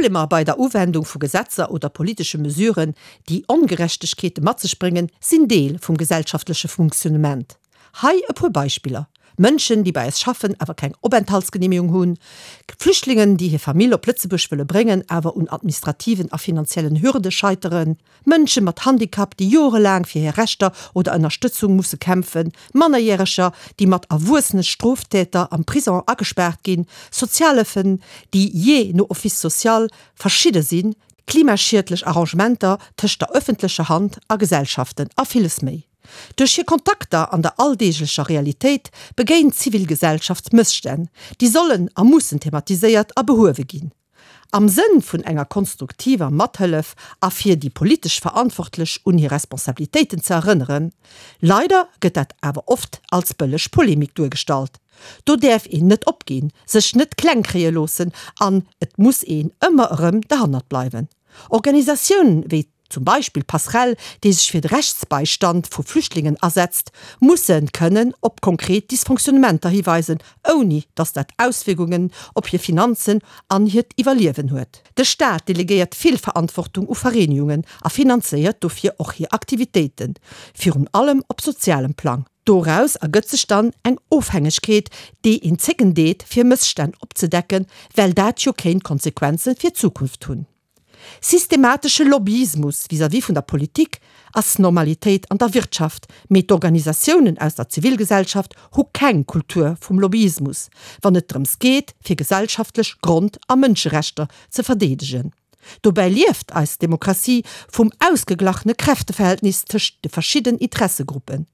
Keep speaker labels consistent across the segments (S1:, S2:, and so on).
S1: Problemer bei der Uwendung vu Gesetzer oder politesche Mesuren, déi Ongerechtegkeete mat sech bréngen, sinn Deel vum gesellschaftleche Funktionnement. Hei e puer Beispiller, Mënschen, déi bei eis schaffen, awer keng Openthaltsgenehmegung hunn, Flüchtlingen, déi hir Famill op Lëtzebuerg wëlle bréngen, awer un administrativen a finanziellen Hürde scheiteren, Mënsche mat Handicap, déi jorelaang fir hir Rechter oder Ënnerstëtzung musse kämpfen, Mannerjäreger, déi mat erwuessene Stroftäter am Prison agespaart ginn, Sozialhëllefen, déi jee no Office social verschidde sinn, klimaschiedlech Arrangementer tëscht der ëffentlecher Hand a Gesellschaften a villes méi. Duerch hir Kontakter an der alldeeglecher Realitéit begéint d'Zivilgesellschaft Mësstänn, déi sollen a mussen thematiséiert a behuewe ginn. Am Sënn vun enger konstruktiver Mathëllef a fir déi politesch Verantwortlech un hir Responsabilitéiten ze erënneren. Leider gëtt dat awer oft als bëlleg Polemik duergestallt. Do däerf een net opginn, sech net kleng kréie loossen an et muss een ëmmer erëm derhannert bleiwen. Organisatiounen wéi zum Beispill Passerell, déi sech fir de Rechtsbeistand vu Flüchtlingen asetzt, musse kënnen op konkret Dysfonctionnementer hiweisen, ouni datt dat Auswierkungen op hir Finanzen an hiert Iwwerliewen huet. De Staat delegéiert vill Verantwortung u Vereenigungen a finanzéiert dofir och hir Aktivitéiten, virun allem op sozialem Plang. Doraus ergëtt sech dann eng Ofhängegkeet, déi een zécken deet, fir Mësstänn opzedecken, well dat jo kéint Konsequenze fir d'Zukunft hunn. Systematesche Lobbyismus vis-à-vis vun der Politik ass Normalitéit an der Wirtschaft, mee d'Organisatiounen aus der Zivilgesellschaft hu keng Kultur vum Lobbyismus, wann et drëms geet, fir gesellschaftlech Grond a Mënscherechter ze verdeedegen. Dobäi lieft eis Demokratie vum ausgeglachene Kräfteverhältnis tëscht de verschidden Interessegruppen.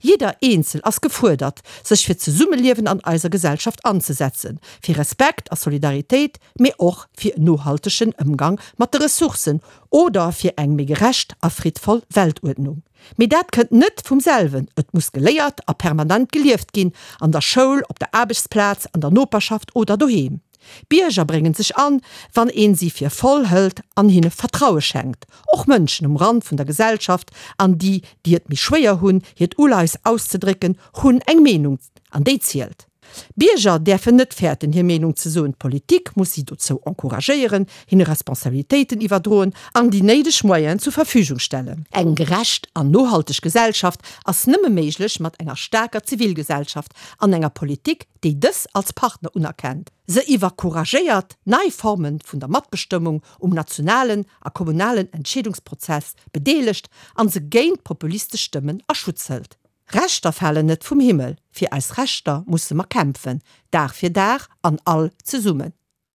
S1: Jidder Eenzel ass gefuerdert, sech fir d'Zesummeliewen an eiser Gesellschaft anzesetzen, fir Respekt a Solidaritéit, mee och fir en nohaltegen Ëmgang mat de Ressourcen oder fir eng méi gerecht a friddvoll Weltuerdnung. Mee dat kënnt net vum selwen, et muss geléiert a permanent gelieft ginn, an der Schoul, op der Aarbechtsplaz, an der Noperschaft oder doheem. Bierger bréngen sech an, wann een si fir voll hëlt an hinne Vertraue schenkt. Och Mënschen um Rand vun der Gesellschaft an déi, déi et méi schwéier hunn, hiert Uleies auszedrécken, hunn eng Meenung an déi zielt. Bierger däerfen net fäerten, hir Meenung ze soen. D'Politik muss si dozou encouragéieren, hinne Responsabilitéiten iwwerdroen an déi néideg Moyenen zur Verfügung stellen. Eng gerecht an nohalteg Gesellschaft ass nëmme méiglech mat enger staarker Zivilgesellschaft an enger Politik, déi dës als Partner unerkennt, se iwwercouragéiert, nei Forme vun der Matbestëmmung um nationalen a kommunalen Entscheedungsprozess bedeelegt an se géint populistesch Stëmmen a Schutz hëlt. Rechter falen net vum Himmel, fir eis Rechter musse mer kämpfen, Dag fir Dag an all zesummen.